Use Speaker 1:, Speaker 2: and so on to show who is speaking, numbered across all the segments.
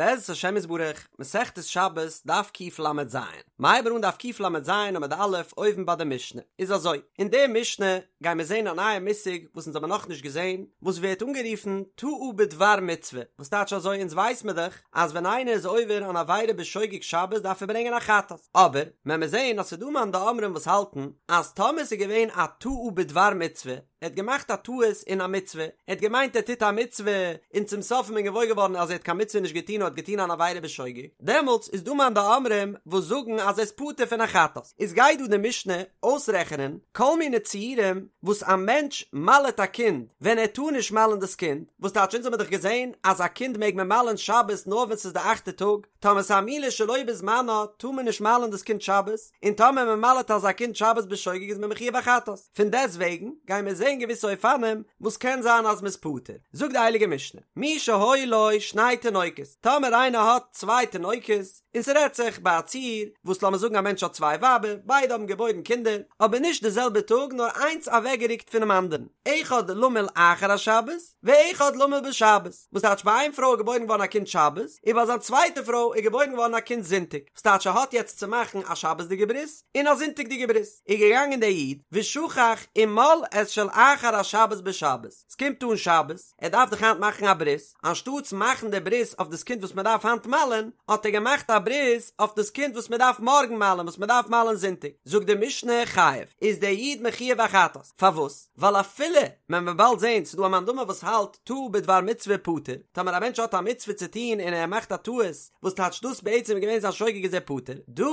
Speaker 1: בעזרת השם יתברך, מסכת שבת, דף קל"ז. מ'הייבן אן דף קל"ז עמוד א', אויבן ביי די משנה. איז אזוי, אין די משנה גייען מיר זען א נייע מושג וואס אונז האבן נאכנישט געזען, וואס ווערט אנגערופן טעה בדבר מצוה, וואס טייטש אזוי אונז ווייס מיר דאך אז ווען איינער איז עובר אן עבירה בשוגג שבת דארף ער ברענגען א חטאת, אבער וועלן מיר זען אז ס'איז דא מאן דאמרים וואס האלטן אז טאמער ס'איז געווען א טעה בדבר מצוה, ער האט געמאכט א טעות אין א מצוה, ער האט געמיינט ער טוט א מצוה, און צום סוף איז מען געוואויר געווארן אז ער האט קיין מצוה נישט געטון נאר האט געטון אן עבירה בשוגג, דעמאלטס איז דא מאן דאמרים וואס זאגן אז ער איז פטור פון א חטאת. איז גייט דא די משנה אויסרעכענען כל מיני ציורים וואס א מענטש מל'עט א קינד ווען ער טאר נישט מל'ען דאס קינד, וואס טייטש אונז האבן מיר דאך געזען אז א קינד מעג מען מל'ען שבת נאר ווען ס'איז די אכטע טאג, טאמער ס'איז א מילה שלא בזמנה טאר מען נישט מל'ען דאס קינד שבת, און טאמער מען מל'עט אזא קינד שבת בשוגג איז מען מחויב א חטאת. פון דעסט וועגן גייען מיר זען געוויסע אופנים וואס קען זיין אז מ'איז פטור. זאגט די הייליגע משנה, מי שהיו לו שני תינוקות, טאמער איינער האט צוויי תינוקות, און ס'רעדט זיך ביי א ציור וואס לאמיר זאגן א מענטש האט צוויי ווייבער, ביידע האבן געבוירן קינדער, אבער נישט די זעלבע טאג נאר איינס אוועקגערוקט פונעם אנדערן, אחד למול אחר השבת, ואחד למול בשבת, וואס טייטש ביי איין פרוי איז געבוירן געווארן א קינד שבת, און ביי זיין צווייטע פרוי איז געבוירן געווארן א קינד זונטאג, וואס טייטש ער האט יעצט צו מאכן א שבת'דיגע ברית און א זונטאג'דיגע ברית, איז געגאנגען דער איד ושכח ומל את של אחר השבת בשבת, ס'קומט אן שבת, ער דארף דאך היינט מאכן א ברית, אנשטאטס מאכן די ברית אויף דאס קינד וואס מען דארף היינט מל'ען, האט ער געמאכט א ברית אויף דאס קינד וואס מען דארף מארגן מל'ען, וואס מען דארף מל'ען זונטאג, זאגט די משנה חייב, איז דער איד מחויב א חטאת, פארוואס? ווייל אפילו מען וועט באלד זען ס'איז דא א מאן דאמר וואס האלט טעה בדבר מצוה פטור, טאמער א מענטש האט א מצוה צו טון און ער מאכט א טעות, וואס טייטש דאס בעצם איז געווען זיין שוגג איז ער פטור, דא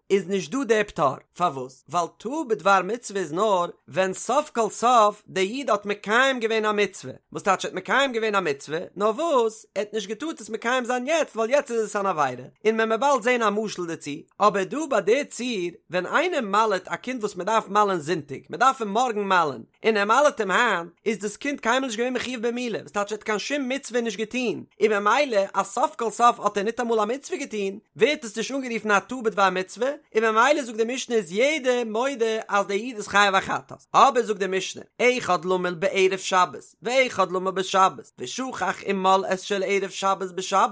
Speaker 1: איז נישט דא דער פטור, פארוואס? ווייל טעה בדבר מצוה איז נאר ווען סוף כל סוף דער איד האט מקיים געווען א מצוה, וואס טייטש ער האט מקיים געווען א מצוה, נאר וואס ער האט נישט געטארט עס מקיים זיין יעצט ווייל יעצט איז עס אן עבירה, און מען וועט באלד זען א משל דערצו, אבער דא ביי די ציור ווען איינער מל'עט א קינד וואס מען דארף מל'ען זונטאג, מען דארף אים מארגן מל'ען, און ער מל'עט אים היינט, איז דאס קינד קיינמאל נישט געווען מחויב במילה, וואס טייטש ער האט קיין שום מצוה נישט געטון, און ממילא אז סוף כל סוף האט ער ניטאמאל א מצוה געטון, ווערט עס נישט אנגערופן א טעה בדבר מצוה, און ממילא זאגט די משנה איז יעדער מודה אז דער איד איז חייב א חטאת. אבער זאגט די משנה, אחד למול בערב שבת, ואחד למול בשבת, ושכח ומל את של ערב שבת בשבת,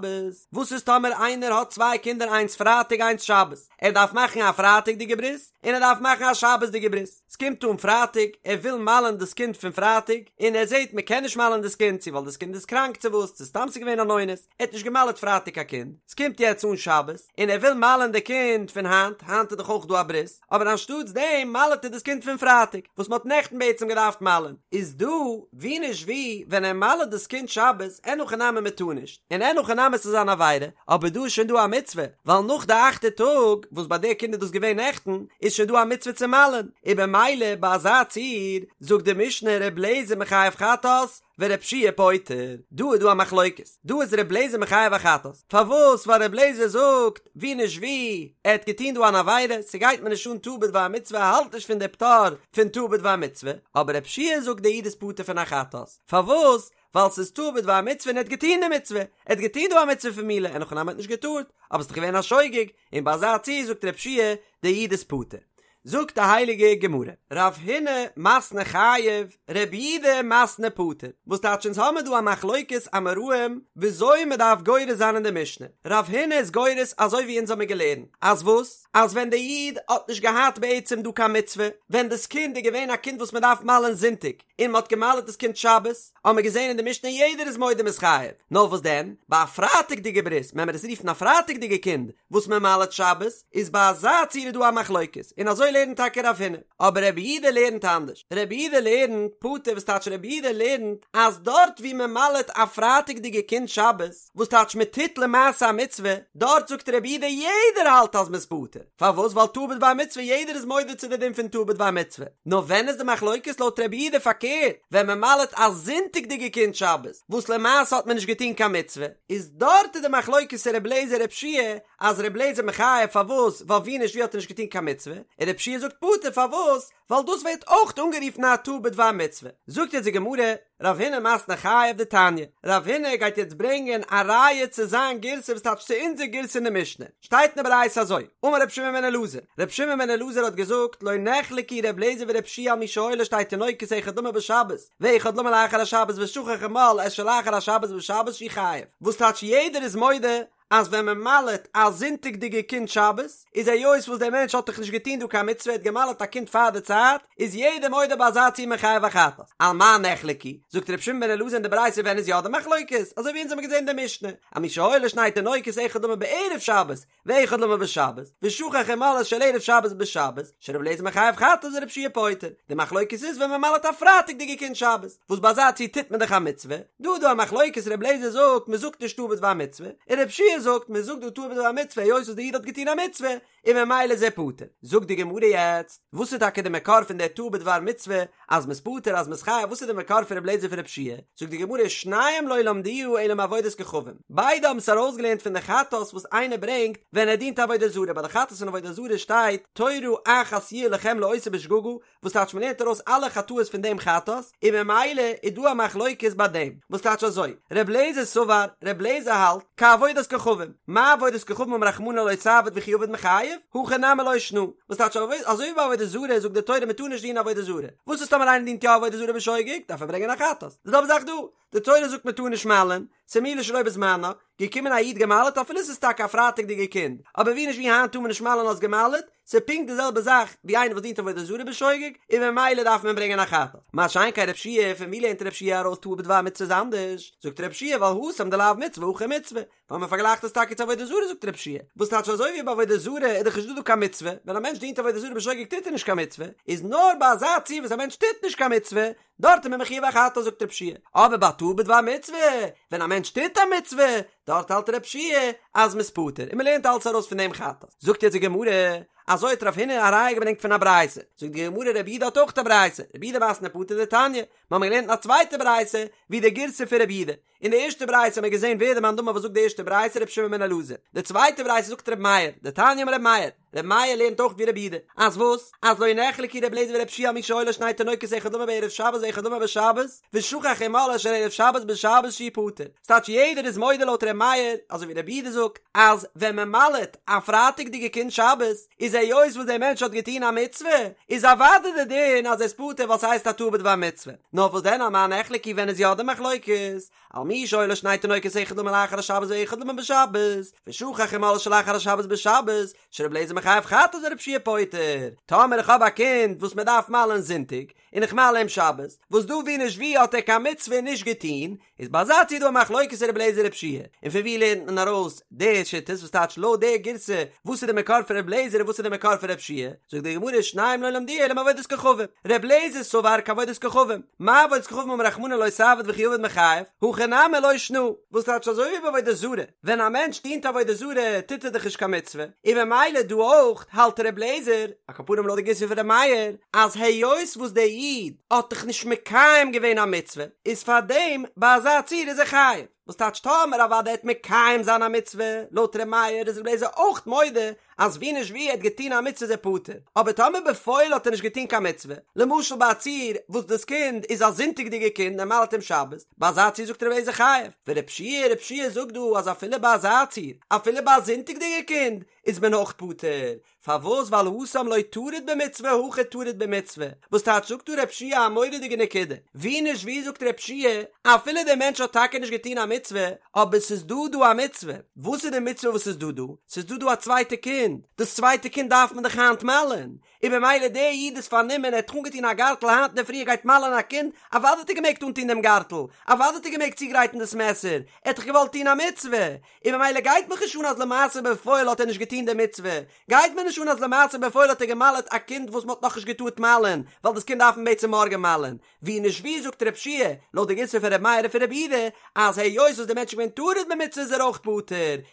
Speaker 1: וואס איז טאמער איינער האט צוויי קינדער איינס פרייטאג איינס שבת, ער דארף מאכן א פרייטאג'דיגע ברית און ער דארף מאכן א שבת'דיגע ברית, ס'קומט אן פרייטאג, ער וויל מל'ען דאס קינד פון פרייטאג, און ער זעט מ'קען נישט מל'ען דאס קינד, צו ווייל דאס קינד איז קראנק צו וואס, צו סתם ס'איז געווען אן אונס, ער האט נישט געמל'עט פרייטאג א קינד, ס'קומט יעצט אן שבת, און ער וויל מל'ען די קינד פון היינט, היינט איז דאך אויך דא א ברית, אבער אנשטאטס דעם מל'עט ער דאס קינד פון פרייטאג, וואס מ'האט נעכטן בעצם געדארפט מל'ען, איז דא, ווי נישט ווי, ווען ער מל'עט דאס קינד שבת, אין הכי נמי מ'טאר נישט, און אין הכי נמי ס'איז אן עבירה, אבער דא איז שוין דא א מצוה, ווייל נאך די אכטע טאג, וואס ביי די קינד איז דאס געווען נעכטן, איז שוין דא א מצוה צו מל'ען, און במילא ביי אזא ציור, זאגט די משנה ר' לעזער מחייב חטאת, ור' יהושע פוטר, דא איז דא א מחלוקת, דא איז ר' לעזער מחייב א חטאת, פארוואס ווייל ר' לעזער זאגט, ווי נישט ווי, ער האט געטון דא אן עבירה, ס'גייט מיר נישט אן טעה בדבר מצוה ער האלט נישט פון די פטור פון טעה בדבר מצוה, אבער ר' יהושע זאגט די איד איז פטור פון א חטאת, פארוואס? ווייל ס'איז טעה בדבר מצוה און ער האט געטון די מצוה, ער האט געטון דא א מצוה פון מילה, אין הכי נמי האט נישט געטארט, אבער ס'איז דאך געווען א שוגג, און ביי אזא ציור זאגט ר' יהושע די איד איז פטור. זאגט די הייליגע גמרא, רב הונא מתני חייב, רב יהודה מתני פטור, וואס טייטש אונז האמיר דא א מחלוקת אמוראים וויאזוי מ'דארף גורס זיין אין די משנה, רב הונא איז גורס אזוי ווי אונז האמיר געלערנט, אז וואס? אז ווען די איד האט נישט געהאט בעצם דא קיין מצוה, ווען דאס קינד איז געווען א קינד וואס מ'דארף מל'ען זונטאג, און מ'האט געמל'עט דאס קינד שבת, האבן מיר געזען אין די משנה יעדער איז מודה מ'איז חייב, נאר וואס דען, ביי א פרייטאג'דיגע ברית, ווען מיר עס רופן א פרייטאג'דיגע קינד, וואס מען מל'עט שבת, איז ביי אזא ציור איז דא א מחלוקת, און אזוי לערנט טאקע רב הונא, אבער רבי יהודה לערנט אנדערש, רבי יהודה לערנט פטור וואס טייטש רבי יהודה לערנט אז דארט ווי מען מל'עט א פרייטאג'דיגע קינד שבת, וואס טייטש מען טוט למעשה א מצוה, דארט זאגט רבי יהודה יעדער האלט אז מ'איז פטור, פארוואס ווייל טעה בדבר מצוה יעדער איז מודה צו די דין פון טעה בדבר מצוה, נאר ווען איז די מחלוקת לויט רבי יהודה פארקערט ווען מען מל'עט א זונטאג'דיגע קינד שבת וואס למעשה האט מען נישט געטון קיין מצוה, איז דארט איז די מחלוקת ר' לעזער ר' יהושע אז ר' לעזער מחייב פארוואס ווייל ווי נישט ווי האט ער נישט געטון קיין מצוה, און ר' יהושע זאגט פטור פארוואס ווייל דאס ווערט אויך אנגערופן א טעה בדבר מצוה. זאגט יעצט די גמרא, רב הונא מתני חייב דתניא, רב הונא גייט יעצט ברענגען א ראיה צו זיין גירסא וואס טייטש צו אונזער גירסא אין די משנה, שטייט אין די ברייתא אזוי, אמר רבי שמעון בן אלעזר, רבי שמעון בן אלעזר האט געזאגט, לא נחלקו רבי אליעזר ורבי יהושע על מי שהיו לו שתי תינוקות אחד למול בשבת, ואחד למול אחר השבת ושכח ומל את של אחר השבת בשבת שהוא חייב, וואס טייטש יעדער איז מודה? אז ווען מען מל'עט א זונטאג'דיגע קינד שבת, איז היות וואס דער מענטש האט דאך נישט געטון דא קיין מצוה ער האט געמל'עט א קינד פאר די צייט, איז יעדער מודה ביי אזא ציור מ'איז חייב א חטאת. על מה נחלקו? זאגט ר' שמעון בן אלעזר אין די ברייתא ווען איז יא די מחלוקת? אזוי ווי אונז האבן געזען אין די משנה, על מי שהיו לו שני תינוקות אחד למול בערב שבת, ואחד למול בשבת, ושכח ומל את של ערב שבת בשבת, שר' אליעזר מחייב חטאת ור' יהושע פוטר. די מחלוקת איז ווען מען מל'עט א פרייטאג'דיגע קינד שבת, וואס ביי אזא ציור טוט מען דאך א מצוה, דא איז דא א מחלוקת ר' אליעזר זאגט מען זאגט נישט טעה בדבר מצוה, און ר' יהושע זאגט מען זאגט דא טעה בדבר מצוה היות וואס די איד האט געטון א מצוה, און ממילא איז ער פטור. זאגט די גמרא יעצט, וואס איז טאקע די מקור פון דער טעה בדבר מצוה, אז מ'איז פטור אז מ'איז חייב, וואס איז די מקור פון ר' אליעזר פון ר' יהושע? זאגט די גמרא, שניהם לא למדוה אלא מעבודת כוכבים, ביידע האבן עס ארויסגעלערנט פון די חטאת וואס איינער ברענגט ווען ער דינט עבודה זרה, ביי די חטאת פון עבודה זרה שטייט תורה אחת יהיה לכם לעושה בשגגה, וואס טייטש מ'לערנט ארויס אלע חטאות פון דעם חטאת, און ממילא איז דא א מחלוקת ביי דעם, וואס טייטש אזוי, ר' לעזער סבר, ר' לעזער האלט, כעבודת כוכבים, מה עבודת כוכבים אמר רחמנא לא תעביד וכי עביד מיחייב, הכא נמי לא שנא, וואס טייטש אזוי ווי ביי עבודה זרה זאגט די תורה מ'טאר נישט דינען עבודה זרה, וואס איז טאמער איינער דינט יא עבודה זרה בשוגג, דארף ער ברענגען א חטאת, די זעלבע זאך דא, די תורה זאגט מען טאר נישט מל'ען, ס'איז מילה שלא בזמנה, געקומען א איד געמל'עט אפילו ס'איז טאקע א פרייטאג'דיגע קינד, אבער ווי נישט ווי היינט טאר מען נישט מל'ען האסט געמל'עט, ס'איז פונקט די זעלבע זאך ווי איינער וואס דינט עבודה זרה בשוגג, און ממילא דארף מען ברענגען א חטאת. מה שאין כן רב שיע, פון ווי לערנט רב שיע ארויס טעה בדבר מצוה איז אנדערש? זאגט רב שיע ווייל התם דלאו מצוה הכא מצוה, ווייל מען פארגלייכט עס טאקע צו עבודה זרה זאגט רב שיע, וואס טייטש אזוי ווי ביי עבודה זרה איז דאך נישט דא דא קיין מצוה, ווען א מענטש דינט עבודה זרה בשוגג טוט ער נישט קיין מצוה, איז נאר ביי אזא ציור וואס א מענטש טוט נישט קיין מצוה, דארט איז מען מחויב א חטאת זאגט רב שיע, אבער ביי טעה בדבר מצוה, ווען א מענטש טוט א מצוה, דארט האלט רב שיע אז מ'איז פטור, און מ'לערנט אלץ ארויס פון דעם חטאת. זאגט יעצט די גמרא, אזוי האט רב הונא א ראיה געברענגט פון א ברייתא, זאגט די גמרא רב יהודה האט אויך א ברייתא, רב יהודה מתני פטור דתניא, מ'האמיר געלערנט אין א צווייטע ברייתא ווי די גירסא פון רב יהודה, אין די ערשטע ברייתא האט מען געזען ווער די מאן דאמר וואס זאגט די ערשטע ברייתא רבי שמעון בן אלעזר, די צווייטע ברייתא זאגט רבי מאיר, דתניא אמר רבי מאיר, רבי מאיר לערנט אויך ווי רבי יהודה, אז וואס? אז לא נחלקו רבי אליעזר ורבי יהושע על מי שהיו לו שני תינוקות אחד למול בערב שבת ואחד למול בשבת, ושכח ומל את של ערב שבת בשבת שהוא פטור, ס'טייטש יעדער איז מודה לויט רבי מאיר, אזוי ווי רבי יהודה זאגט, אז ווען מען מל'עט א פרייטאג'דיגע קינד שבת, איז היות וואס דער מענטש האט געטון א מצוה, איז אוודאי די דין אז ער איז פטור ווייל ס'הייסט א טעה בדבר מצוה. נאר וואס דען על מה נחלקו ווען איז יא די מחלוקת? על מי שהיו לו שני תינוקות אחד למול לאחר השבת ואחד למול בשבת, ושכח ומל את שלאחר השבת בשבת, שרבי אליעזר מחייב חטאת ורבי יהושע פוטר. טאמער איך האב א קינד וואס מען דארף מל'ען זונטאג, און איך מל אים שבת, וואס דא ווי נישט ווי האט ער קיין מצוה נישט געטון, איז ביי אזא ציור דא א מחלוקת רבי אליעזר רבי יהושע, און פון ווי לערנט מען ארויס די שיטות וואס טייטש לויט די גירסא וואס איז די מקור פון רבי אליעזר און וואס איז די מקור פון רבי יהושע, זאגט די גמרא שניהם לא למדוה אלא מעבודת כוכבים, רבי אליעזר סבר כעבודת כוכבים, מה עבודת כוכבים אמר רחמנא לא תעביד וכי עביד מיחייב, הכא נמי לא שנא, וואס טייטש אזוי ווי ביי עבודה זרה, ווען א מענטש דינט עבודה זרה טוט ער דאך נישט קיין מצוה, און ממילא דא אויך האלט רבי אליעזר, על כל פנים לויט די גירסא פון רבי מאיר, אז היות וואס דער איד האט דאך נישט מקיים געווען א מצוה, איז פאר דעם ביי אזא ציור איז ער חייב. וואס טייטש טאמער אוודאי עט מקיים זיין א מצוה, לויט ר' מאיר איז ר' אליעזר אויך מודה אז ווי נישט ווי ער האט געטון א מצוה איז ער פטור, אבער טאמער בפועל האט ער נישט געטון קיין מצוה, למשל ביי א ציור וואס דאס קינד איז א זונטאג'דיגע קינד ער מל'ט אום שבת, ביי אזא ציור זאגט ר' אליעזר חייב, ור' יהושע, ר' יהושע זאגט דא אז אפילו ביי אזא ציור, אפילו ביי א זונטאג'דיגע קינד, איז מען אויך פטור, פארוואס ווייל התם לא טריד במצוה הכא טריד במצוה, וואס טייטש זאגט דא ר' יהושע א מורא'דיגע נקודה, ווי נישט ווי זאגט ר' יהושע אפילו דער מענטש האט טאקע נישט געטון א מצוה, אבער ס'איז דא דא א מצוה, וואס איז די מצוה וואס איז דא דא? ס'איז דא דא א צווייטע קינד, דאס צווייטע קינד דארף מען דאך היינט מל'ען, און במילא דער איד איז פארנומען ער האט אנגעטון א גארטל היינט אינדערפרי ער גייט מל'ען א קינד, אוודאי האט ער געמעגט אנטון דעם גארטל, אוודאי האט ער געמעגט צוגרייטן דאס מעסער, ער האט דאך געוואלט טון א מצוה, און ממילא גייט מיך נישט אן אז למעשה בפועל האט ער נישט געטון די מצוה, גייט מיר נישט אן אז למעשה בפועל האט ער געמל'עט א קינד וואס מ'האט נאכנישט געטארט מל'ען, ווייל דאס קינד דארף מען בעצם מארגן מל'ען, ווי נישט ווי זאגט ר' יהושע, לויט די גירסא פון ר' מאיר און פון ר' יהודה, אז היות וואס די מענטש איז געווען טרוד במצוה איז ער אויך פטור,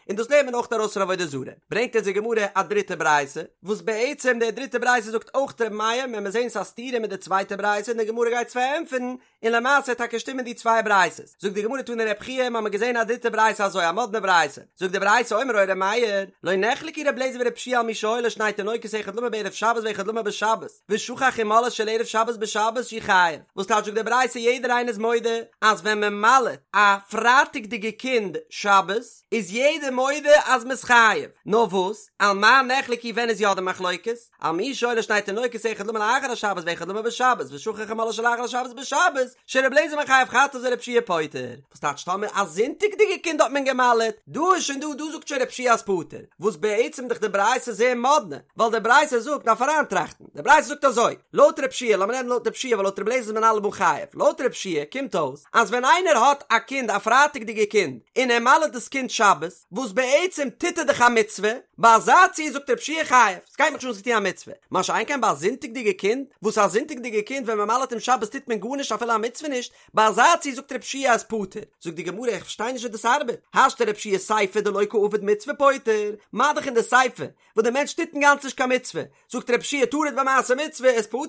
Speaker 1: און דאס לערנט מען אויך ארויס פון עבודה זרה. ברענגט אונז די גמרא א דריטע ברייתא, וואס בעצם די דריטע ברייתא זאגט אויך ר' מאיר, וועלן מיר זען ס'איז א סתירה מיט די צווייטע ברייתא און די גמרא גייט עס פארענטפערן, און למעשה טאקע שטימען די צוויי ברייתות. זאגט די גמרא תני רב חייא, מ'האמיר געזען א דריטע ברייתא אזוי, א מאדנע ברייתא. זאגט די ברייתא אומר היה ר' מאיר, לא נחלקו ר' אליעזר ור' יהושע על מי שהיו לו שני תינוקות אחד למול בערב שבת ואחד למול בשבת, ושכח ומל את של ערב שבת בשבת שהוא חייב. וואס טייטש זאגט די ברייתא יעדער איינער איז מודה אז ווען מען מל'עט א פרייטאג'דיגע קינד שבת איז יעדער מודה אז מ'איז חייב. נאר וואס? על מה נחלקו ווען איז יא די מחלוקת? על מי שהיו לו שני תינוקות אחד למול לאחר השבת ואחד למול בשבת ושכח ומלאו של אחר השבת בשבת שר' אליעזר מחייב חטאת ור' יהושע פוטר. וואס טייטש טאמער א זונטאג'דיגע קינד האט מען געמל'עט? דא איז שוין דא דא זאגט שוין ר' יהושע אז פטור. וואס בעצם דאך די ברייתא זייער מאדנע, ווייל די ברייתא זאגט דארף אריינטראכטן, די ברייתא זאגט אזוי, לויט ר' יהושע, לאמיר רעדן לויט ר' יהושע ווייל לויט ר' אליעזר איז מען אלעמאל חייב, לויט ר' יהושע קומט אויס אז ווען איינער האט א קינד א פרייטאג'דיגע קינד און ער מל'עט דאס קינד שבת, וואס בעצם טוט ער דאך א מצוה, ביי אזא ציור זאגט ר' יהושע חייב, ס'גייט מיך נישט אן האסט געטון א מצוה, מה שאין כן ביי א זונטאג'דיגע קינד, וואס א זונטאג'דיגע קינד ווען מ'מל'עט אים שבת טוט מען גארנישט אפילו א מצוה נישט, ביי אזא ציור זאגט ר' יהושע אז פטור, זאגט די גמרא איך פארשטיי נישט ווי דאס ארבעט, השתא ר' יהושע סיפא דלא קא עביד מצוה פוטר, מה דאך אין די סיפא וואס די מענטש טוט אינגאנצן נישט קיין מצוה, זאגט ר' יהושע טרוד במעשה מצוה איז פטור,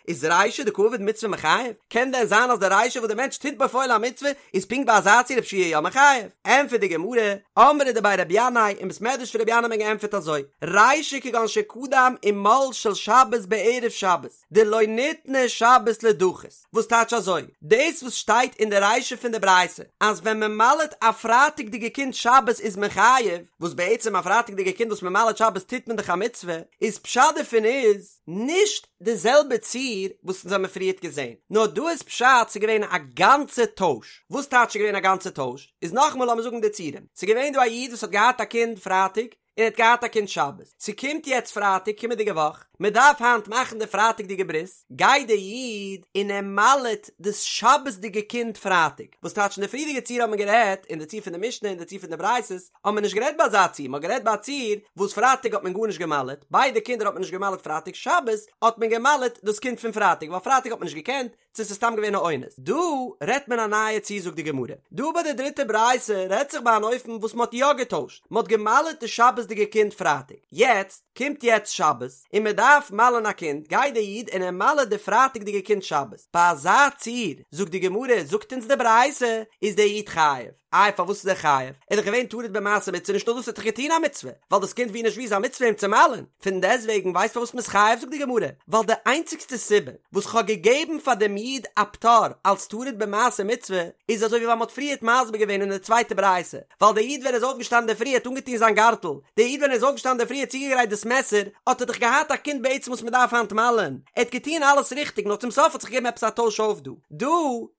Speaker 1: איז רישא דקא עביד מצוה מיחייב? קען דען זיין אז די רישא וואס די מענטש טוט בפועל א מצוה איז פונקט ביי אזא ציור ר' יהושע יא מחייב? ענטפערט די גמרא, אמרי דבי רבי ינאי, אין בית מדרש פון רבי ינאי האט מען געענטפערט אזוי, רישא כגון שקדם ומל של שבת בערב שבת, דלא ניתנה שבת לדחות. וואס טייטש אזוי? דאס וואס שטייט אין די רישא פון די ברייתא אז ווען מען מל'עט א פרייטאג'דיגע קינד שבת איז מען חייב, וואס בעצם א פרייטאג'דיגע קינד וואס מען מל'עט שבת טוט מען דאך א מצוה, איז פשט דערפון איז נישט די זעלבע ציור וואס אונז האמיר פריערט געזען, נאר דא איז פשט ס'איז געווען א גאנצע טויש. וואס טייטש ס'איז געווען א גאנצע טויש? איז נאכאמאל לאמיר זאגן די ציורים, ס'איז געווען דא א איד וואס האט געהאט א קינד פרייטאג, און ער האט געהאט א קינד שבת, ס'קומט יעצט פרייטאג קומענדיגע וואך, מען דארף היינט מאכן די פרייטאג'דיגע ברית, גייט דער איד און ער מל'עט דאס שבת'דיגע קינד פרייטאג, וואס טייטש אין די פריערדיגע ציור האט מען גערעדט, אין די ציור פון די משנה און די ציור פון די ברייתות, האט מען נישט גערעדט ביי אזא ציור, מען האט גערעדט ביי א ציור וואס פרייטאג האט מען גארנישט געמל'עט, ביידע קינדער האט מען נישט געמל'עט פרייטאג, שבת האט מען געמל'עט דאס קינד פון פרייטאג, ווייל פרייטאג האט מען נישט געקענט, צו ס'איז סתם געווען א אונס. דא רעדט מען א נייע ציור זאגט די גמרא. דא ביי די דריטע ברייתא רעדט זיך ביי אן אופן וואס מ'האט יא געטוישט, מ'האט גע'מל'עט די שבת'דיגע קינד פרייטאג, יעצט קומט יעצט שבת און מ'דארף מל'ען א קינד, גייט די איד און ער מל'עט די פרייטאג'דיגע קינד שבת. ביי אזא ציור זאגט די גמרא, זאגט אונז די ברייתא, איז דער איד חייב. איי פארוואס איז ער חייב? ער איז דאך געווען טרוד במעשה מצוה נישט נאר דאס ער האט דאך געטון א מצוה, ווייל דאס קינד ווי נישט ווי איז א מצוה אים צו מל'ען, פון דעסטוועגן ווייסט פארוואס מ'איז חייב זאגט די גמרא, ווייל די איינציגסטע סיבה וואס כ'האב געגעבן פאר דעם איד א פטור אלס טרוד במעשה מצוה איז אזוי ווי ווייל מ'האט פריערט מסביר געווען אין די צווייטע ברייתא, ווייל דער איד ווען ער איז אויפגעשטאנען אינדערפרי האט אנגעטון זיין גארטל, דער איד ווען ער איז אויפגעשטאנען אינדערפרי האט צוגעגרייט דאס מעסער, האט ער דאך געהאט א קינד בעצם וואס מ'דארף היינט מל'ען, ער האט געטון אלעס ריכטיג נאר צום סוף האט זיך געגעבן עפעס א טויש אויף דא דא.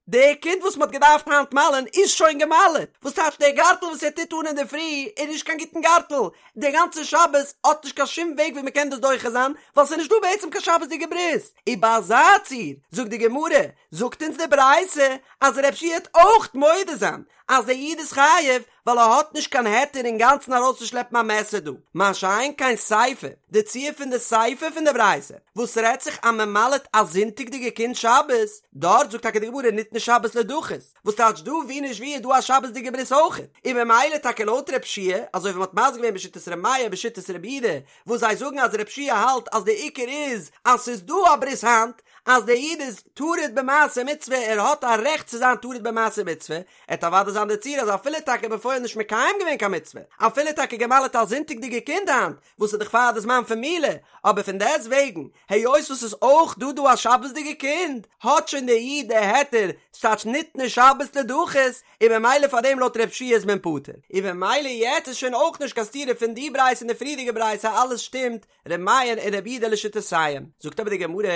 Speaker 1: די קינד וואס מ'האט געדארפט היינט מל'ען איז שוין גע'מל'עט, וואס טייטש דער גארטל וואס ער טוט אן אינדערפרי איז נישט קיין גוטן גארטל, די גאנצע שבת האט נישט קיין שום וועג ווי מ'קען דאס דוחה זיין, ווייל ס'איז נישט דא בעצם קיין שבת'דיגע ברית, און ביי אזא ציור, זאגט די גמרא, זאגט אונז די ברייתא אז ר' יהושע וועט אויך מודה זיין אז דער איד איז חייב, ווייל ער האט נישט קיין היתר אינגאנצן ארויסצושלעפן א מעסער דא, מה שאין כן סיפא, די ציור פון די סיפא פון די ברייתא, וואס רעדט זיך אז מען מל'עט א זונטאג'דיגע קינד שבת, דארט זאגט טאקע די גמרא ניתנה שבת לדחות, וואס טייטש דא ווי נישט ווי איז דא א שבת'דיגע ברית אויכעט, און ממילא טאקע לויט ר' יהושע, אזוי ווי מען האט מסביר געווען בשיטת ר' מאיר בשיטת ר' יהודה, וואס זיי זאגן אז ר' יהושע האלט אז די עיקר איז אז ס'איז דא א ברית היינט, אז דער איד איז טרוד במעשה מצוה ער האט א רעכט צו זיין טרוד במעשה מצוה, עט אוודאי זיין די ציור אז אפילו טאקע בפועל נישט מקיים געווען קיין מצוה, אפילו טאקע געמל'עט א זונטאג'דיגע קינד היינט, וואס איז דאך פאר די זמן פון מילה, אבער פון דעסט וועגן, היות וואס ס'איז אויך דא דא א שבת'דיגע קינד, האט שוין דער איד די היתר, ס'טייטש ניתנה שבת לדחות, און ממילא פאר דעם לויט ר' יהושע איז מען פטור. און ממילא יעצט איז שוין אויך נישט קיין סתירה פון די ברייתא און די פריערדיגע ברייתא אלעס שטימט, ר' מאיר און ר' יהודה לשיטותיהם. זאגט אבער די גמרא,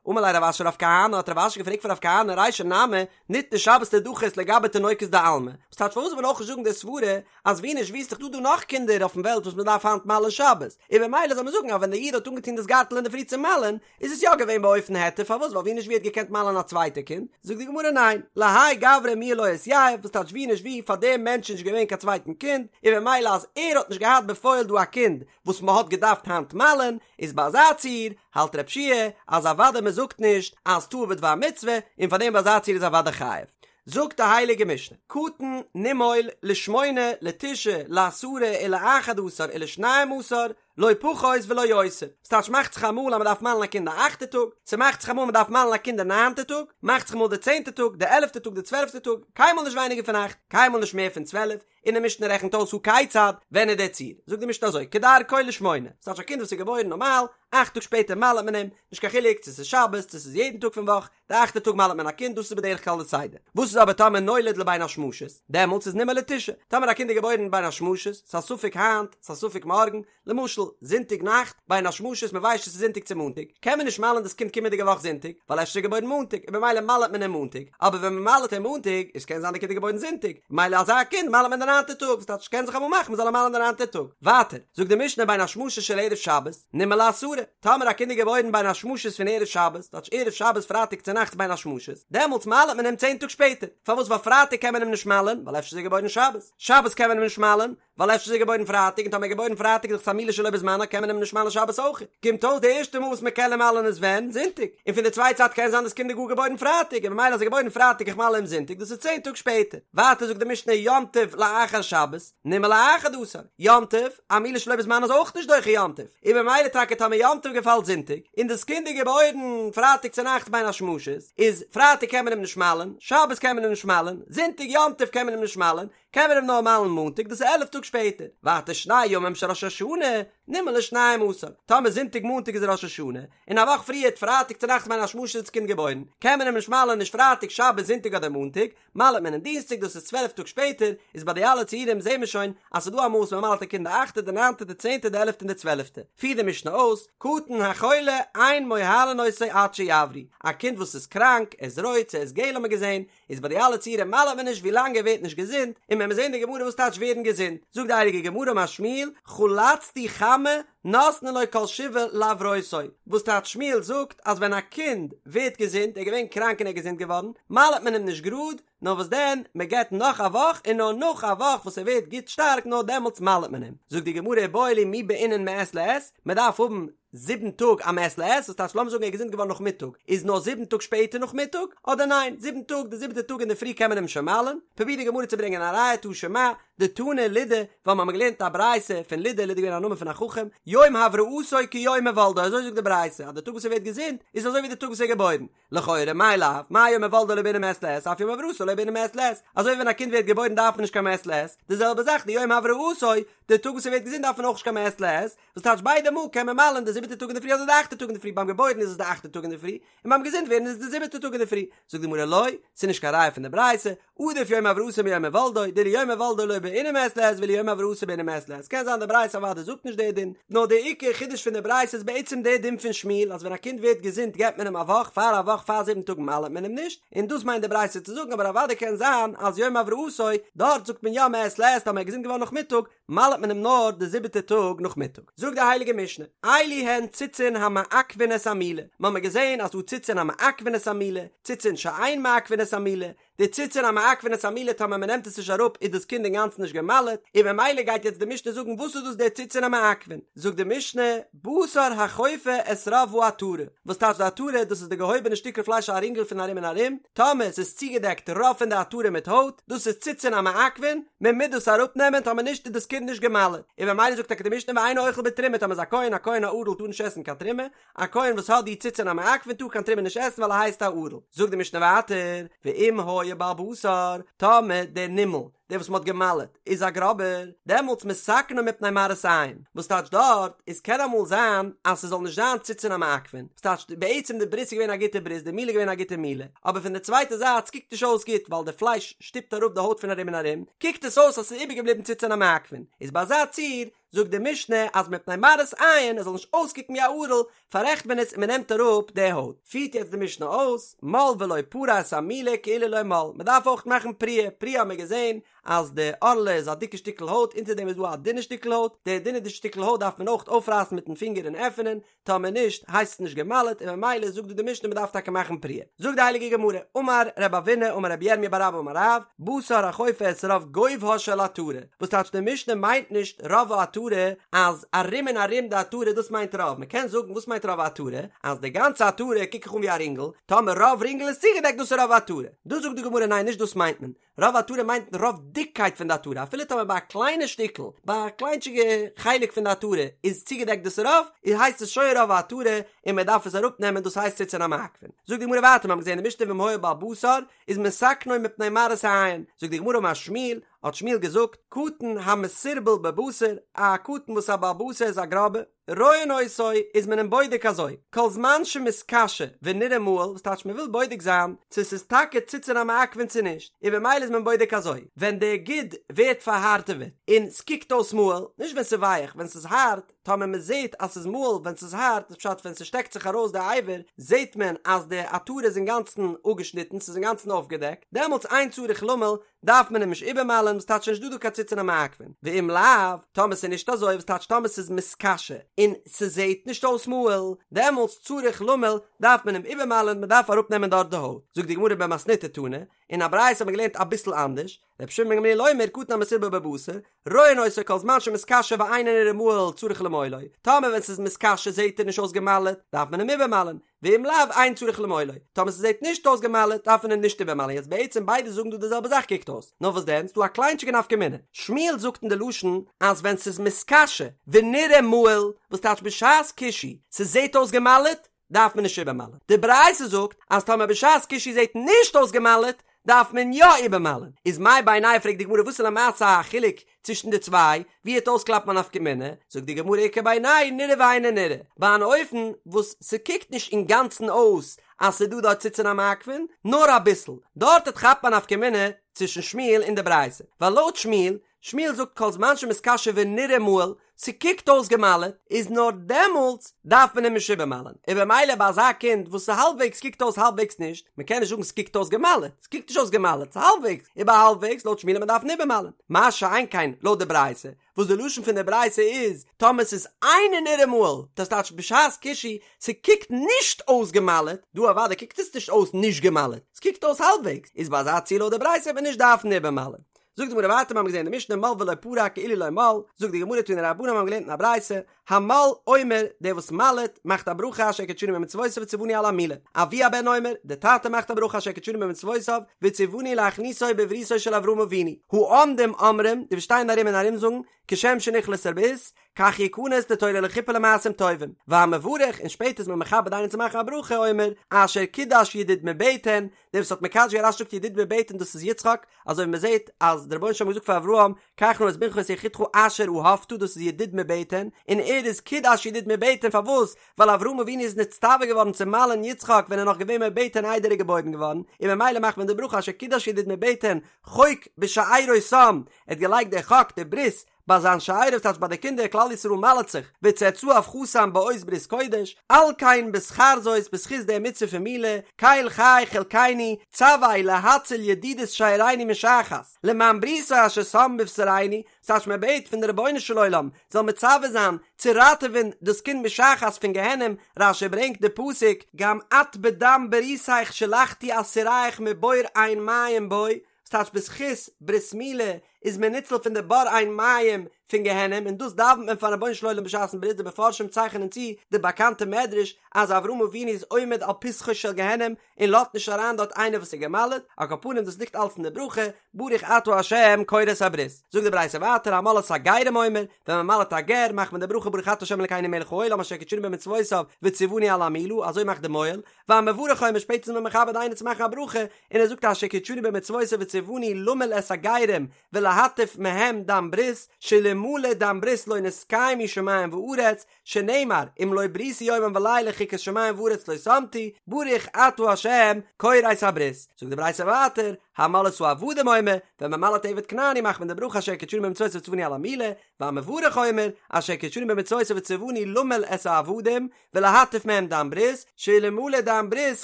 Speaker 1: אמר ליה רב אשי לרב כהנא, האט רב אשי געפרעגט פון רב כהנא, רישא נמי, ניתנה שבת לדחות לגבי תינוקות דעלמא. וואס טייטש פארוואס זאל מען אויך נישט זאגן די סברה אז ווי נישט ווי איז דאך דא דא נאך קינדער אויפן וועלט וואס מען דארף היינט מל'ען שבת, און ממילא זאל מען זאגן אז ווען דער איד האט אנגעטון דאס גארטל אינדערפרי צו מל'ען, איז עס יא געווען באופן היתר, פארוואס ווייל ווי נישט ווי האט געקענט מל'ען א צווייטע קינד, זאגט די גמרא ניין, להאי גברא מיהא לא אתייב, וואס טייטש ווי נישט ווי פאר דעם מענטש איז נישט געווען קיין צווייטן קינד, און ממילא אז ער האט נישט געהאט בפועל דא א קינד וואס מען האט געדארפט היינט מל'ען, איז ביי אזא ציור, האלט ר' יהושע אז אוודאי מען זאגט נישט אז טעה בדבר מצוה, און פאר דעם ביי אזא ציור איז אוודאי חייב. זאגט די הייליגע משנה, קטן נימול לשמונה לתשעה לעשרה ולאחד עשר ולשנים עשר, לא פחות ולא יותר. ס'טייטש מאכט זיך אמאל אז מ'דארף מל'ן א קינד די אכטע טאג, ס'מאכט זיך אמאל מ'דארף מל'ן א קינד די ניינטע טאג, מאכט זיך אמאל די צענטע טאג, די עלעפטע טאג, די צוועלפטע טאג, קיינמאל נישט ווייניגער פון אכט, קיינמאל נישט מער פון צוועלף. און די משנה רעכנט אויס הא כיצד, ווען איז דער ציור? זאגט די משנה אזוי, כדרכו לשמונה, ס'טייטש א קינד וואס איז געבוירן נארמאל, אכט טאג שפעטער מל'עט מען אים, נישט קיין חילוק צו ס'איז שבת צו ס'איז יעדן טאג פון וואך, די אכטע טאג מל'עט מען א קינד, דאס איז בדרך כלל די סדר. וואס איז אבער טאמער נולד לבין השמשות? דעמאלטס איז נימול לתשעה. טאמער א קינד איז געבוירן בין השמשות, ס'איז א ספק היינט, ס'איז א ספק מארגן, למשל, זונטאג נאכט, בין השמשות, מ'ווייסט נישט צו ס'איז זונטאג צו מאנטאג, קען מען נישט מל'ען דאס קינד קומענדיגע וואך זונטאג, ווייל אפשר איז ער געבוירן מאנטאג, און במילא מל'עט מען אים מאנטאג, אבער ווען מ'מל'עט אים מאנטאג, איז קען זיין די קינד איז געבוירן זונטאג, ממילא אזא קינד מל'עט מען די ניינטע טאג, וואס טייטש ס'קען זיך אמאל מאכן מ'זאל אים מל'ען די ניינטע טאג. ווייטער, זאגט די משנה בין השמשות של ערב שבת, נימול לעשרה, טאמער א קינד איז געבוירן בין השמשות פון ערב שבת, טייטש ערב שבת פרייטאג צונאכטס בין השמשות, דעמאלטס מל'עט מען אים צען טאג שפעטער, פארוואס ווייל פרייטאג קען מען אים נישט מל'ען, ווייל אפשר איז ער געבוירן שבת, שבת קען מען אים נישט מל'ען, ווייל אפשר איז ער געבוירן פרייטאג, און טאמער ער איז געבוירן פרייטאג איז דאך עס א מילה שלא בזמנה קען מען אים נישט מל'ען שבת אויך, קומט אויס די ערשטע מאל וואס מען קען אים מל'ען איז ווען? זונטאג, און פון די צווייטע זייט קען זיין דאס קינד איז גאר געבוירן פרייטאג, און ממילא אז ער איז געבוירן פרייטאג איך מל אים זונטאג דאס איז צען טאג שפעטער, ווייטער זאגט די משנה יום טוב לאחר שבת, נימול לאחד עשר, יום טוב, א מילה שלא בזמנה איז אויך נישט דוחה יום טוב, און ממילא טאקע טאמער יום טוב געפאלט זונטאג, און דאס קינד איז געבוירן פרייטאג צונאכטס בין השמשות, איז פרייטאג קען מען אים נישט מל'ען, שבת קען מען אים נישט מל'ען, זונטאג יום טוב קען מען אים נישט מל'ען, קען מען אים נאר מל'ן מאנטאג, דאס איז עלף טאג שפעטער. ווייטער שני ימים של ראש השנה, נימול לשנים עשר, טאמער זונטאג מאנטאג איז ראש השנה, און א וואך פריערט פרייטאג צונאכטס בין השמשות איז דאס קינד געבוירן, קען מען אים נישט מל'ען נישט פרייטאג, שבת, זונטאג אדער מאנטאג, מל'ט מען אים דינסטאג דאס איז 12 טאג שפעטער, איז ביי די אלע ציורים זעהן מיר שוין אז ס'איז דא אמאל וואס מ'מל'ט א קינד די אכטע די ניינטע די צענטע די עלעפטע און די צוועלעפטע, פירט די משנה אויס, קטן החולה אין מוהלין אותו עד שיבריא, א קינד וואס איז קראנק, ער איז רויט צו ער איז געל האט מען געזעהן, איז ביי די אלע ציורים מל'ט מען נישט ווי לאנג ער ווערט נישט געזונט, און ווען מיר זעהן די גמרא וואס טייטש ווערן געזונט, זאגט די הייליגע גמרא אמר שמואל, חלצתו חמה נותנין לו כל שבעה להברותו, וואס טייטש שמואל זאגט אז ווען א קינד ווערט געזונט, ער איז געווען קראנק און ער איז געזונט געווארן, מל'ט מען אים נישט גראד, נאר וואס דען, מען געבט נאך א וואך און נאר נאך א וואך וואס ער ווערט גוט שטארק נאר דעמאלטס מל'ט מען אים. זאגט די גמרא איבעיא להו מי בעינן מעת לעת, מען דארף האבן זיבן טאג א מעת לעת, וואס טייטש לאמיר זאגן ער איז געזונט געווארן נאכמיטאג, איז נאר זיבן טאג שפעטער נאכמיטאג, אדער ניין, זיבן טאג, די זיבעטע טאג אינדערפרי קען מען אים שוין מל'ן, פרובירט די גמרא צו ברענגען א ראיה תא שמע, דתנא לודא, ווייל מ'האמיר געלערנט א ברייתא פון לודא, לודא איז געווען א נאמען פון א חכם, יום הבראתו כיום הולדו, אזוי זאגט די ברייתא, אז די טאג וואס ער ווערט געזונט, איז אזוי ווי די טאג וואס ער איז געבוירן, לכאורה מאי לאו, מה יום הולדו לא בעינן מעת לעת, אף יום הבראתו לא בעינן מעת לעת, אזוי ווי ווען א קינד ווערט געבוירן דארף מען נישט קיין מעת לעת, די זעלבע זאך די יום הבראתו, די טאג וואס ער ווערט געזונט דארף מען אויך נישט קיין מעת לעת, וואס טייטש ביידע מאל קען מען מל'ען די זיבעטע טאג אינדערפרי אדער די אכטע טאג אינדערפרי, ביים געבוירן איז עס די אכטע טאג אינדערפרי, און ביים געזונט ווערן איז עס די זיבעטע טאג אינדערפרי, זאגט די גמרא לא, ס'איז נישט קיין ראיה פון די ברייתא, עדיף יום הבראתו מיום הולדו, דאילו יום הולדו לא בעינן מעת לעת ואילו יום הבראתו בעינן מעת לעת, קען זיין די ברייתא אוודאי זאגט נישט די דין, נאר די עיקר חידוש פון די ברייתא איז בעצם די דין פון שמואל אז ווען א קינד ווערט געזונט געבט מען אים א וואך, פאר א וואך פאר זיבן טאג מל'עט מען אים נישט, און דאס מיינט די ברייתא צו זאגן, אבער אוודאי קען זיין אז יום הבראתו, דארט זאגט מען יא מעת לעת טאמער ער איז געזונט געווארן נאכמיטאג, מל'ט מען אים נאר די זיבעטע טאג נאכמיטאג. זאגט די הייליגע משנה, אלו הן ציצין המעכבין את המילה, מ'האמיר געזען אז ס'דא ציצין המעכבין את המילה, ציצין שאין מעכבין את המילה, די ציצין המעכבין את המילה טאמער מ'נעמט עס נישט אראפ איז דאס קינד אינגאנצן נישט גע'מל'ט, און ממילא גייט יעצט די משנה זאגן וואס איז דאס די ציצין המעכבין, זאגט די משנה, בשר החופה את רוב העטרה, וואס טייטש די עטרה, דאס איז די געהויבענע שטיקל פלייש א רינגל פון ארום און ארום, טאמער ס'איז צוגעדעקט רוב פון די עטרה מיט הויט, דאס איז ציצין המעכבין, מען מוז דאס אראפנעמען, טאמער נישט איז דאס קינד נישט גע'מל'ט, און ממילא זאגט טאקע די משנה ואינו אוכל בתרומה, טאמער איז א כהן, א כהן א ערל טאר נישט עסן קיין תרומה, א כהן וואס האט די ציצין המעכבין טאר קיין תרומה נישט עסן ווייל ער הייסט א ערל. זאגט די משנה ווייטער, ואם היה בעל בשר, טאמער דער נימול, דער וואס מען האט גע'מל'ט, איז א גראבער, דעמאלטס מתקנו מפני מראית עין, וואס טייטש דארט, איז קען אמאל זיין אז ס'זאל נישט זיין ציצין המעכבין, וואס טייטש בעצם די ברית איז געווען א גוטע ברית, די מילה איז געווען א גוטע מילה, אבער פון די צווייטע זייט ס'קוקט נישט אויס גוט ווייל די פלייש שטופט אראפ די הויט פון ארום און ארום, קוקט עס אויס אז ס'איז איבערגעבליבן ציצין המעכבין, איז ביי אזא ציור זאגט די משנה אז מפני מראית עין עס זאל נישט אויסקוקן ווי א ערל, פאררעכט מען עס און מען נעמט אראפ די הויט. פירט יעצט די משנה אויס, מל ולא פרע את המילה כאילו לא מל, מען דארף אויך מאכן פריעה, פריעה האט מען געזען אז די ערלה איז א דיקע שטיקל הויט, אונטער דעם איז דא א דינע שטיקל הויט, די דינע שטיקל הויט דארף מען אויך אויפרייסן מיטן פינגער און עפענען, טאמער נישט הייסט עס נישט גע'מל'ט און ממילא זאגט דא די משנה מ'דארף טאקע מאכן פריעה. זאגט די הייליגע גמרא, אמר רב אבינא אמר רבי ירמיה בר אבא אמר רב, בשר החופה את רוב גובהה של עטרה, וואס טייטש די משנה מיינט נישט רוב העטרה אז ארום און ארום די עטרה דאס מיינט רוב, מ'קען זאגן וואס מיינט רוב העטרה, אז די גאנצע עטרה קוק איך אן ווי א רינגל, טאמער רוב רינגל איז צוגעדעקט דאס איז רוב העטרה, דא זאגט די גמרא ניין נישט דאס מיינט מען, רוב עטרה מיינט רוב דיקקייט פון די עטרה, אפילו טאמער ביי א קליינע שטיקל, ביי א קליינטשיגע חלק פון די עטרה איז צוגעדעקט דאס רוב, איז הייסט עס שוין רוב העטרה און מען דארף עס אראפנעמען דאס הייסט ציצין המעכבין. זאגט די גמרא ווייטער, מיר האבן געזען אין די משנה ואם היה בעל בשר איז מתקנו מפני מראית העין, זאגט די גמרא אמר שמואל, האט שמואל געזאגט, קטן המסורבל בבשר, א קטן וואס איז א בעל בשר איז א גראבע, רואין אותו איז מען אים בודק אזוי, כל זמן שמתקשה ונראה מהול, וואס טייטש מען וויל בודק זיין צו ס'איז טאקע ציצין המעכבין צו נישט, און במילא איז מען בודק אזוי, ווען די גיד ווערט פארהארטעוועט און ס'קוקט אויס מהול, נישט ווען ס'איז ווייעך, ווען ס'איז הארט, טאמער מען זעט אז ס'איז מהול ווען ס'איז הארט, איז פשט ווען ס'שטעקט זיך ארויס די אבר, זעט מען אז די עטרה איז אינגאנצן אפגעשניטן, ס'איז אינגאנצן אויפגעדעקט, דעמאלטס אין צריך למול, דארף מען אים נישט איבערמל'ען וואס טייטש נישט דא דא קיין ציצין המעכבין, ואם לאו, טאמער ס'איז נישט אזוי וואס טייטש טאמער ס'איז מתקשה און ס'זעהט נישט אויס מהול, דעמאלטס צריך למול דארף מען אים איבערמל'ען מ'דארף אראפנעמען דארט די הויט, זאגט די גמרא במתניתא תנא, אין א ברייתא האט מען געלערנט אביסל אנדערש, רבי שמעון בן גמליאל אומר קטן המסורבל בבשר, רואין אותו כל זמן שמתקשה ואינו נראה מהול צריך למולו, טאמער ווען ס'איז מתקשה זעהט ער נישט אויס געמל'עט, דארף מען אים איבערמל'ען, ואם לאו אין צריך למולו, טאמער ס'זעט נישט אויס געמל'עט דארף מען אים נישט איבערמל'ען, יעצט בעצם ביידע זאגן דא די זעלבע זאך קוקט אויס, נאר וואס דען ס'דא א קליינטשיגע נפקא מינה, שמואל זאגט אין די לשון אז ווען ס'איז מתקשה ונראה מהול, וואס טייטש בשעת קישוי ס'זעט אויס געמל'עט דארף מען נישט איבערמל'ען, די ברייתא זאגט אז טאמער בשעת קישוי זעט נישט אויס געמל'עט דארף מען יא איבערמל'ען, איז מאי בינייהו פרעגט די גמרא וואס איז למעשה א חילוק צווישן די צוויי, ווי העט אויסקלאפן א נפקא מינה, זאגט די גמרא איכא בינייהו נראה ואינו נראה, ביי אן אופן וואס ס'קוקט נישט אינגאנצן אויס אז ס'דא דארט ציצין המעכבין, נאר אביסל, דארט העט כאפן א נפקא מינה צווישן שמואל און די ברייתא, ווייל לויט שמואל, שמואל זאגט כל זמן שמתקשה ונראה מהול, ס'קוקט אויס געמל'עט, איז נאר דעמאלטס דארף מען אים נישט איבערמל'ען, און במילא ביי אזא קינד וואס איז האלבוועגס קוקט אויס האלבוועגס נישט, מ'קען נישט זאגן ס'קוקט אויס געמל'עט, ס'קוקט נישט אויס געמל'עט, ס'איז האלבוועגס, איבער האלבוועגס לויט שמואל מ'דארף אים איבערמל'ען, מה שאין כן לויט די ברייתא, וואס די לשון פון די ברייתא איז, טאמער ס'איז אינו נראה מהול, דאס טייטש בשעת קישוי, ס'קוקט נישט אויס געמל'עט, דא אוודאי קוקט עס נישט אויס נישט געמל'עט, ס'קוקט אויס האלבוועגס, איז ביי אזא ציור לויט די ברייתא וועט מען נישט דארפן איבערמל'ען. זאגט די גמרא ווייטער מיר האבן געזען אין די משנה מל ולא פרע כאילו לא מל, זאגט די גמרא תנו רבנן מיר האבן געלערנט אין א ברייתא, המל אומר, דער וואס מל'עט, מאכט א ברכה אשר קדשנו במצוותיו וציוונו על המילה, אבי הבן אומר, דער טאטע מאכט א ברכה אשר קדשנו במצוותיו וציוונו להכניסו בבריתו של אברהם אבינו, העומדים אומרים, די וואס שטייען ארום און ארום זאגן, כשם שנכנס לברית, כך יכנס לתורה לחופה ולמעשים טובים, והמברך, און שפעטער איז מען מכבד איינעם צו מאכן א ברכה, אומר, אשר קידש ידיד מבטן, דער וואס האט מקדש געווען רש"י זאגט ידיד מבטן דאס איז יצחק, אזוי ווי מען זעט אז דער רבונו של עולם האט געזאגט פאר אברהם, קח נא את בנך את יחידך אשר אהבת דאס איז ידיד מבטן, און ער איז קידש ידיד מבטן פארוואס? ווייל אברהם אבינו איז נצטווה געווארן צו מל'ען יצחק ווען ער איז נאך געווען מבטן איידער ער איז געבוירן געווארן, און ממילא מאכט מען די ברכה אשר קידש ידיד מבטן חוק בשארו שם, ער האט געלייגט די חק די ברית ביי זיין שארו ס'טייטש ביי די קינדער כלל ישראל מל'ט זיך וצאצאיו חתם באות ברית קודש, על כן בשכר זאת בזכות די מצוה פון מילה, קל חי חלקנו, צוה להציל ידידות שארינו משחת, למען בריתו אשר שם בבשרינו, ס'טייטש מען בעט פון די רבונו של עולם זאל מצווה זיין צו ראטעווען דאס קינד משחת פון גיהנום, רש"י ברענגט די פסוק, גם את בדם בריתך שלחתי אסירייך מבור אין מים בו, ס'טייטש בזכות ברית מילה איז מען ניצול פון די בור אין מים פון גיהנום און דאס דאווענט מען פארן רבונו של עולם בשעת'ן ברית די מפרשים צייכענען צו די באקאנטע מדרש אז אברהם אבינו איז עומד על פתחו של גיהנום און לאזט נישט אריין דארט איינער וואס איז גע'מל'ט, על כל פנים דאס ליגט אלץ אין די ברכה ברוך אתה ה' כורת הברית. זאגט די ברייתא ווייטער המל את הגרים אומר, ווען מען מל'ט א גר מאכט מען די ברכה ברוך אתה ה' אלקינו מלך העולם אשר קדשנו במצוותיו וציוונו על המילה אזוי מאכט די מוהל, והמברך אומר שפעטער איז מען מכבד איינער צו מאכן א ברכה, און ער זאגט אשר קדשנו במצוותיו וציוונו למול את הגרים ולהטיף מהם דם ברית, שאלמלא דם ברית לא נתקיימו שמים וארץ, שנאמר אם לא בריתי יומם ולילה חוקות שמים וארץ לא שמתי, ברוך אתה ה' כורת הברית. זאגט די ברייתא ווייטער, המל את העבדים אומר, ווען מען מל'ט עבד כנעני מאכט מען די ברכה אשר קדשנו במצוותיו וציוונו על המילה, והמברך אומר, אשר קדשנו במצוותיו וציוונו למול את העבדים, ולהטיף מהם דם ברית, שאלמלא דם ברית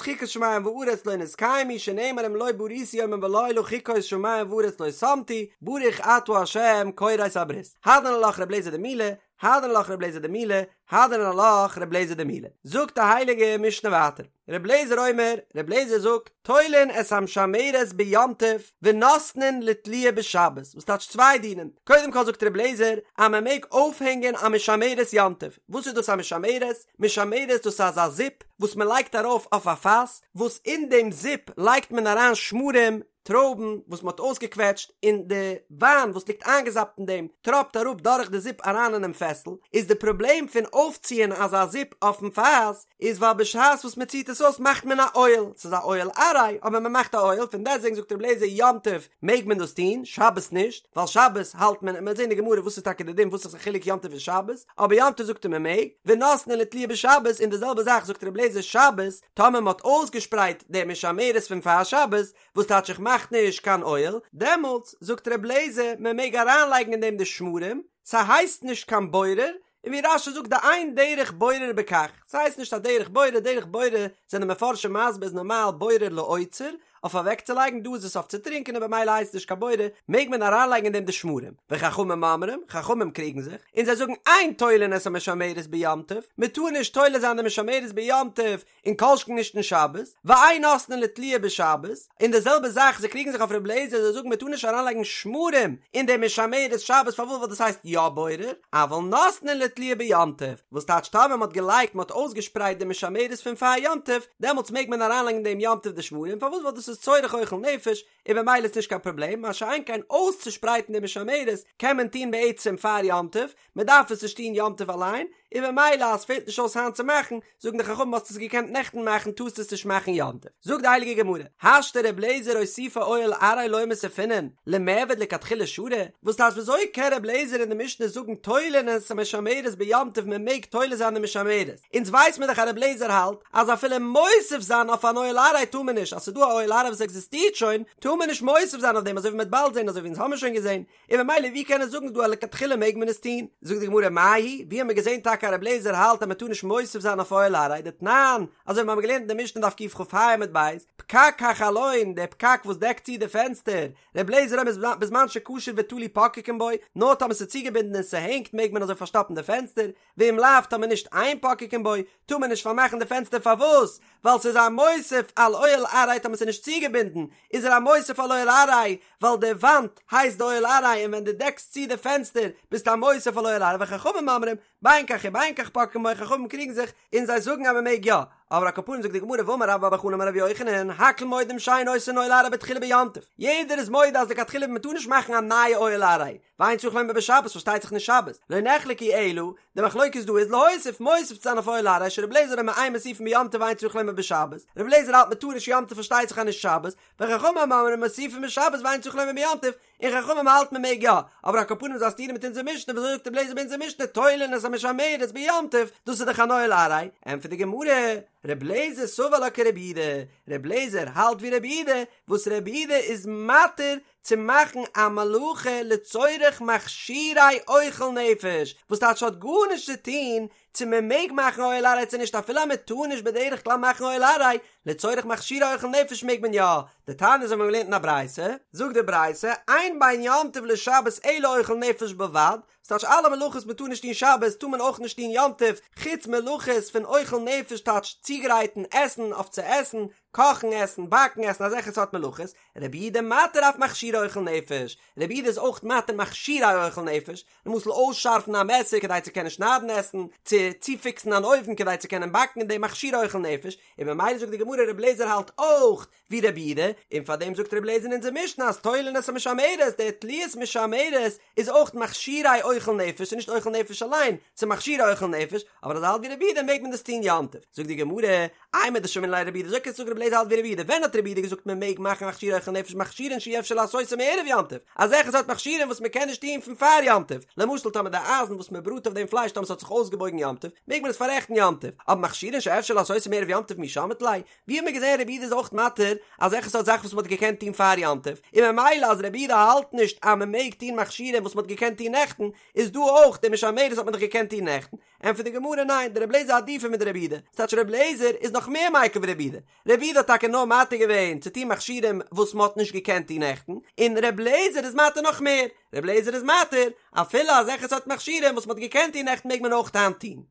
Speaker 1: חוקות שמים וארץ לא נתקיימו שנאמר אם לא בריתי יומם ולילה חוקות שמים וארץ לא שמתי, ברוך אתה ה' כורת הברית. הדרן עלך ר' אליעזר דמילה, הדרן עלך ר' אליעזר דמילה, הדרן עלך ר' אליעזר דמילה. זאגט די הייליגע משנה ווייטער, ר' אליעזר אומר, ר' אליעזר זאגט, תולין את המשמרת ביום טוב ונותנין לתליה בשבת, וואס טייטש צוויי דינים, קודם כל זאגט ר' אליעזר אז מען מעג אויפהענגען א משמרת יום טוב, וואס איז דאס א משמרת? משמרת דאס איז אזא זיפ וואס מען לייגט ארויף אויף א פאס, וואס אין דעם זיפ לייגט מען אריין שמרים. טרויבן וואס מ'האט אויסגעקוועטשט און די וויין וואס ליגט איינגעזאפט אין דעם טראפט אראפ דורך די זיפ אריין אינעם פעסל, איז די פראבלעם פון אויפציען אזא זיפ אויפן פאס איז ווייל בשעת וואס מ'ציט עס אויס מאכט מען א אוהל, ס'איז א אוהל עראי אבער מ'מאכט א אוהל, פון דעסטוועגן זאגט רבי אליעזר יום טוב מעג מען דאס טון, שבת נישט, ווייל שבת האלט מען, מ'וועט זען אין די גמרא וואס איז טאקע די דין וואס איז די חילוק יום טוב און שבת, אבער יום טוב זאגט ער מ'מעג, ונותנין לתליה בשבת, און די זעלבע זאך זאגט רבי אליעזר שבת, טאמער מ'האט אויסגעשפרייט די משמרת פון פאר שבת, וואס טייטש איך מאך נישט קיין אוהל, דעמאלטס זאגט ר' לעזער מען מעג אריינלייגן אין דעם די שמרים, ס'הייסט נישט קיין בורר, און ווי רש"י זאגט דאין דרך בורר בכך, ס'הייסט נישט א דרך בורר, דרך בורר זענען מפרשים מסביר איז נארמאל בורר לאוצר, אויף אוועקצולייגן, דא איז עס אויף צו טרינקען און במילא הייסט עס נישט קיין בורר, מעג מען אריינלייגן אין דעם די שמרים, וחכמים אומרים, חכמים קריגן זיך, און זיי זאגן אין תולין את המשמרת ביום טוב, מען טאר נישט תולה זיין די משמרת ביום טוב, און כל שכן נישט אין שבת, ואין נותנין לתליה בשבת, און די זעלבע זאך זיי קריגן זיך אויף רבי אליעזר זיי זאגן מען טאר נישט אריינלייגן שמרים אין די משמרת שבת פארוואס ווייל דאס הייסט יא בורר, אבל נותנין לתליה ביום טוב, וואס טייטש טאמער מען האט געלייגט מען האט אויסגעשפרייט די משמרת פון פאר יום טוב, דעמאלטס מעג מען אריינלייגן דעם יום טוב די שמרים פארוואס ווייל דאס איז צורך אוכל נפש, און במילא איז נישט קיין פראבלעם, מה שאין כן אויסצושפרייטן די משמרת קען מען טון בעצם פאר יום טוב, מען דארף עס נישט טון יום טוב אליין, און במילא אז ס'פעלט נישט אויס היינט צו מאכן, זאגן די חכמים האסט עס געקענט נעכטן מאכן טארסט עס נישט מאכן יום טוב. זאגט די הייליגע גמרא, השתא ר' לעזער אוסופי אוהל עראי לא מוסיפינן, למיעבד לכתחילה שרי, וואס טייטש וויאזוי קען ר' לעזער אין די משנה זאגן תולין את המשמרת ביום טוב מען מעג תולה זיין די משמרת, אונז ווייס מיר דאך אז ר' לעזער האלט אז אפילו מוסיף זיין אויף אן אוהל עראי טאר מען נישט, אז ס'איז דא א אוהל עראי וואס עקזיסטירט שוין, טאר מען נישט מוסיף זיין אויף דעם אזוי ווי מ'וועט באלד זען אזוי ווי אונז האמיר שוין געזען, און ממילא ווי קען ער זאגן דא אז לכתחילה מעג מען עס טון? זאגט די גמרא מאי היא, ווי האמיר געזען טאקע אז ר' לעזער האלט אז מ'טאר נישט מוסיף זיין אויף אוהל עראי, דתנן, אזוי ווי מ'האמיר געלערנט אין די משנה דף קכ"ה עמוד ב', פקק החלון, דער פקק וואס דעקט צו די פענסטער, ר' לעזער אומר בזמן שקשור ותלוי פוקקין בו, נאר טאמער ס'איז צוגעבינדן און ס'הענגט מעג מען אזוי פארשטאפן די פענסטער, ואם לאו טאמער נישט אין פוקקין בו, טאר מען נישט פארמאכן די פענסטער פארוואס? ווייל ס'איז א מוסיף על אוהל עראי טאמער ס'איז נישט צוגעבינדן איז ער א מוסיף על אוהל עראי ווייל די וואנט הייסט די אוהל עראי און ווען דו דעקסט צו די פענסטער ביסטו א מוסיף על אוהל עראי וחכמים אומרים בין כך ובין כך פוקקין בו חכמים קריגן זיך און זיי זאגן אז מ'מעג יא אבער על כל פנים זאגט די גמרא ואמר רבה בר בר חנה אמר רבי יוחנן הכל מודים שאין עושין אוהל עראי בתחילה ביום טוב יעדער איז מודה אז לכתחילה מ'טאר נישט מאכן א נייע אוהל עראי ואין צריך לומר בשבת פארשטייט זיך נישט שבת, לא נחלקו אלא, די מחלוקת דא איז להוסיף מוסיף צו זיין אויף אוהל עראי שרבי אליעזר אומר אין מוסיפין ביום טוב ואין צריך לומר בשבת, רבי אליעזר האלט מען טאר נישט יום טוב פארשטייט זיך אז נישט שבת, וחכמים אומרים מוסיפין בשבת ואין צריך לומר ביום טוב, און חכמים האלטן מען מעג יא, אבער על כל פנים איז א סתירה מיט אונזער משנה וויאזוי זאגט רבי אליעזר ביי אונזער משנה תולין את המשמרת ביום טוב, דאס איז דאך אן אוהל עראי, ענטפערט די גמרא, רבי אליעזר סבר לה כרבי יהודה, רבי אליעזר האלט ווי רבי יהודה, וואס רבי יהודה איז מתיר צו מאכן א מלאכה לצורך מכשירי אוכל נפש, וואס טייטש האט גארנישט צו טון צו מען מעג מאכן אוהל עראי צו נישט אפילו אז מען טאר נישט בדרך כלל מאכן אוהל עראי, לצורך מכשירי אוכל נפש מעג מען יא, דתניא אזוי האבן מיר געלערנט אין א ברייתא, זאגט די ברייתא, אין בין יום טוב לשבת אלא אוכל נפש בלבד, ס'טייטש אלע מלאכות מען טאר נישט טון שבת טאר מען אויך נישט טון יום טוב, חוץ מלאכות פון אוכל נפש טייטש צוגרייטן עסן אויף צו עסן, קאכן עסן, באקן עסן, אזעלכע סארט מלאכות, רבי יהודה מתיר אף מכשירי אוכל נפש, רבי יהודה איז אויך מתיר מכשירי אוכל נפש, למשל אויסשארפן א מעסער כדי צו קענען שניידן עסן, צו צופיקסן אן אויוון כדי צו קענען באקן אין דעם מכשירי אוכל נפש, און ממילא זאגט די גמרא רבי אליעזר האלט אויך ווי רבי יהודה, און פאר דעם זאגט רבי אליעזר אין אונזער משנה אז תולין את המשמרת, די תליית משמרת איז אויך מכשירי אוכל נפש, ס'איז נישט אוכל נפש אליין, ס'איז מכשירי אוכל נפש, אבער אז ער האלט ווי רבי יהודה מעג מען דאס טון יום טוב. זאגט די גמרא, אימר דשמעינן ליה לרבי יהודה, וויאזוי קענסטו זאגן רבי אליעזר האלט ווי רבי יהודה, ווען האט רבי יהודה געזאגט מען מעג מאכן מכשירי אוכל נפש מכשירין שאי אפשר לעשותם מערב יום טוב, אזעלכע סארט מכשירים וואס מען קען נישט טון פון פאר יום טוב, למשל טאמער די אייזן וואס מען בראט אויף דעם פלייש טאמער ס'האט זיך אויסגעבויגן יום טוב, מעג מען עס פאררעכטן יום טוב, אבער מכשירין שאפשר לעשותם מערב יום טוב מי שמעת ליה, ווי האט מען געזען רבי יהודה איז אויך מתיר אזעלכע סארט זאכן וואס מען האט געקענט טון פאר יום טוב, און ממילא אז רבי יהודה האלט נישט אז מען מעג טון מכשירים וואס מען האט געקענט טון נעכטן, איז דא אויך די משמרת האט מען דאך געקענט טון נעכטן, ענטפערט די גמרא ניין, דרבי אליעזר עדיפא מדרבי יהודה, ס'טייטש רבי אליעזר איז נאך מער מיקל ווי רבי יהודה, רבי יהודה האט טאקע נאר מתיר געווען צו טון מכשירים וואס מען האט נישט געקענט טון נעכטן, און רבי אליעזר איז מתיר נאך מער, רבי אליעזר איז מתיר אפילו אזעלכע סארט מכשירים וואס מען האט געקענט טון נעכטן מעג מען אויך היינט טון.